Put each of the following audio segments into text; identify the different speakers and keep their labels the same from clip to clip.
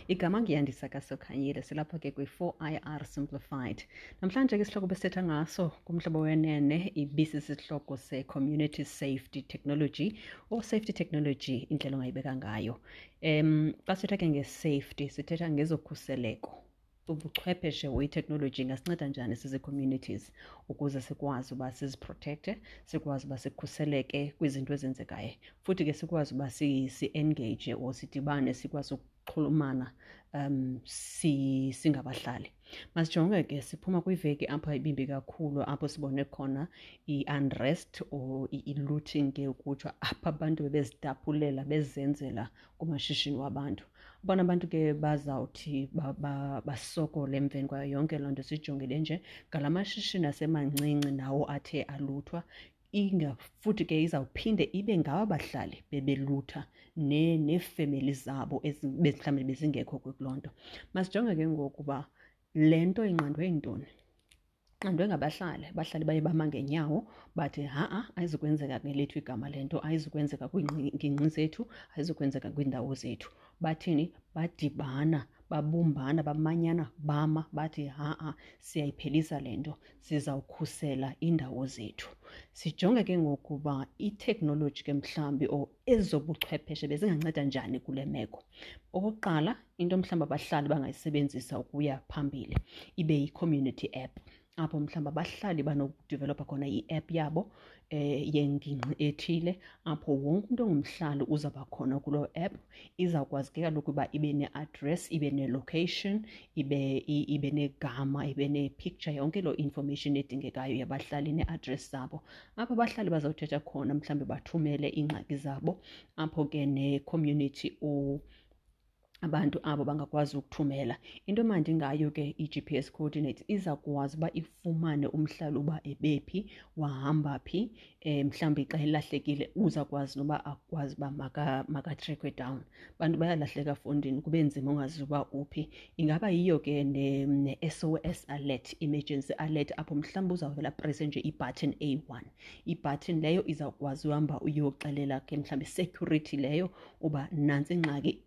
Speaker 1: Igama nguYandisa kaSokhanyile, silapha ke kwi-4IR Simplified. Namhlanje ke isihloko besithetha ngaso kuMhlobo Wenene ibisisihloko se-Community Safety Technology or Safety Technology, indlela ongayibeka ngayo. Xa sithetha ke nge-safety sithetha ngezokhuseleko. Ubuchwepheshe or iteknoloji ingasinceda njani sizi-communities ukuze sikwazi uba siziprotekte, sikwazi uba sikhuseleke kwizinto ezenzekayo, futhi ke sikwazi uba si-engage or sidibane, sikwazi ukuxhulumana singabahlali. Masijonge ke, siphuma kwiveki apho ibimbi kakhulu, apho sibone khona i-unrest or i-looting ke ukutsho, apho abantu bebezitaphulela bezenzela kumashishini wabantu. Abona abantu ke bazawuthi basokole emveni kwayo yonke loo nto sijongile nje ngala mashishini asemancinci nawo athe aluthwa. Inga futhi ke izawuphinde ibe ngaba bahlali bebelutha neefemeli zabo mhlawumbi bezingekho kuloo nto. Masijonge ke ngoku uba le nto inqandwe yintoni. Inqandwe ngabahlali. Abahlali baye bama ngeenyawo bathi ha-a, ayizukwenzeka ngelethu igama le nto, ayizukwenzeka kwiingingqi zethu, ayizukwenzeka kwiindawo zethu. Bathini? Badibana, babumbana, bamanyana, bama bathi ha-a, siyayiphelisa le nto, sizawukhusela iindawo zethu. Sijonge ke ngoku uba iteknoloji ke mhlawumbi or ezobuchwepheshe bezinganceda njani kule meko. Okokuqala, into mhlawumbi abahlali bangayisebenzisa ukuya phambili ibe yi-community app, apho mhlawumbi abahlali banokudevelopha khona i-app yabo yengingqi ethile, apho wonke umntu ongumhlali uzawuba khona kuloo app. Izawukwazi ke kaloku uba ibe ne-address, ibe ne-location, ibe negama, ibe ne-picture, yonke loo information edingekayo yabahlali nee-address zabo, apho abahlali bazawuthetha khona, mhlawumbi bathumele iingxaki zabo, apho ke ne-community or abantu abo bangakwazi ukuthumela. Into emandi ngayo ke i-GPS coordinates, izawukwazi uba ifumane umhlali uba ebephi, wahamba phi, mhlawumbi xa elahlekile uzawukwazi noba akwazi uba makatrekwe down. Abantu bayalahleka fondini, kube nzima ungazi uba uphi. Ingaba yiyo ke ne-SOS alert, emergency alert, apho mhlawumbi uzawuvela presse nje i-button eyi-one. I-button leyo izawukwazi uhamba uyoxelela ke mhlawumbi security leyo uba nantsi ingxaki,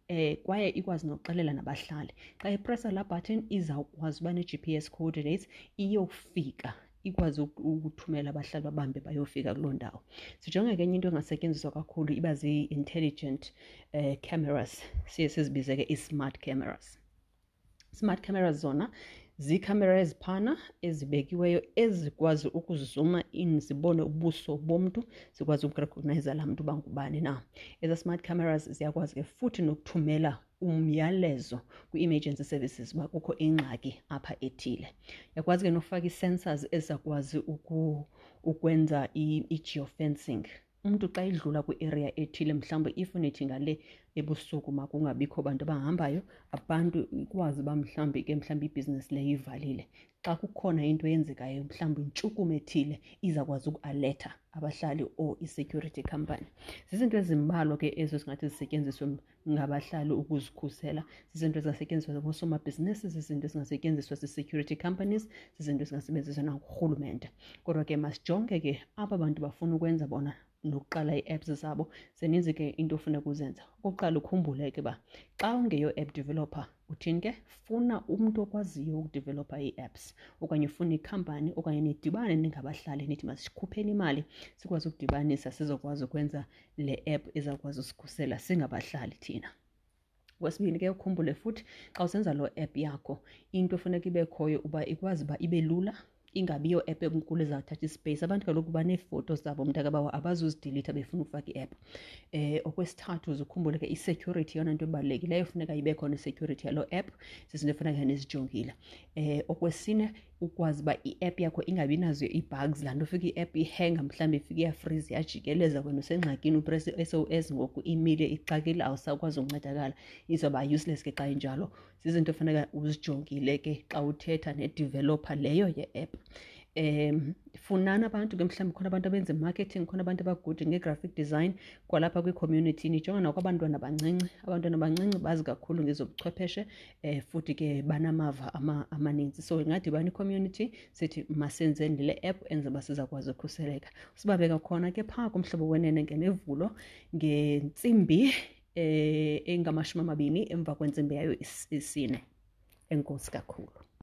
Speaker 1: kwaye ikwazi nokuxelela nabahlali. Xa ipressa laa button izawukwazi uba ne-GPS coordinates, iyofika ikwazi ukuthumela abahlali babambe bayofika kuloo ndawo. Sijonge ke enye into engasetyenziswa kakhulu iba zii-intelligent cameras, siye sizibize ke i-smart cameras. Smart cameras zona ziikhamera eziphana ezibekiweyo ezikwazi ukuzuma in zibone ubuso bomntu, zikwazi ukurecognize laa mntu uba ngubani na. Eza smart cameras ziyakwazi ke futhi nokuthumela umyalezo kwi-emergency services uba kukho ingxaki apha ethile. Uyakwazi ke nofaka ii-sensors ezizakwazi ukwenza i-geofencing. Umntu xa edlula kwi-area ethile, mhlawumbi if nithi ngale ebusuku makungabikho bantu abahambayo, abantu ikwazi uba mhlawumbi ke mhlawumbi ibhizinesi leyo ivalile. Xa kukhona into eyenzekayo, mhlawumbi intshukumo ethile, izawukwazi ukualetha abahlali or i-security company. Zizinto ezimbalwa ke ezo zingathi zisetyenziswe ngabahlali ukuzikhusela. Zizinto ezingasetyenziswa ngoosomabhizinisi, zizinto ezingasetyenziswa zii-security companies, zizinto ezingasebenziswa nangurhulumente. Kodwa ke masijonge ke aba bantu bafuna ukwenza bona nokuqala ii-apps zabo, zininzi ke into ofuneka uzenza. Okokuqala, ukhumbule ke uba xa ungeyo app developer, uthini ke? Funa umntu okwaziyo ukudevelopha ii-apps, okanye ufune ikhampani, okanye nidibane ningabahlali nithi masikhupheni imali sikwazi ukudibanisa sizokwazi ukwenza le app ezawukwazi usikhusela singabahlali thina. Okwesibini ke, ukhumbule futhi xa usenza loo app yakho, into efuneka ibe khoyo uba ikwazi uba ibe lula, ingabi yo app enkulu ezawuthatha ispace. Abantu kaloku baneefoto zabo, mntakabawo, abazuzidilitha befuna ukufaka i-app. Okwesithathu, uzukhumbule ke i-security, yeyona nto ebalulekileyo, funeka ibe khona i-security yaloo app, zizinto efuneka nizijongile. Okwesine, ukwazi uba i-app yakho ingabi nazo ii-bugs, laa nto ufika i-app ihenga, mhlawumbi ifike iyafriza, iyajikeleza, wena usengxakini, upresse i-SOS ngoku imile, ixakile, awusakwazi ukuncedakala, izawuba useless ke xa injalo. Zizinto efuneka uzijongile ke xa uthetha ne-developer leyo ye-app. Funani abantu ke, mhlawumbi khona abantu abenza i-marketing, khona abantu abagude nge-graphic design kwalapha kwi-community. Nijonga nakwabantwana abancinci, abantwana abancinci bazi kakhulu ngezobuchwepheshe, futhi ke banamava amaninzi. So ingadibana i-community sithi masenzeni le app enze uba sizakwazi ukhuseleka. Sibabeka khona ke phaa kuMhlobo Wenene ngeMivulo ngentsimbi 20 emva kwentsimbi yayo isine. Enkosi kakhulu.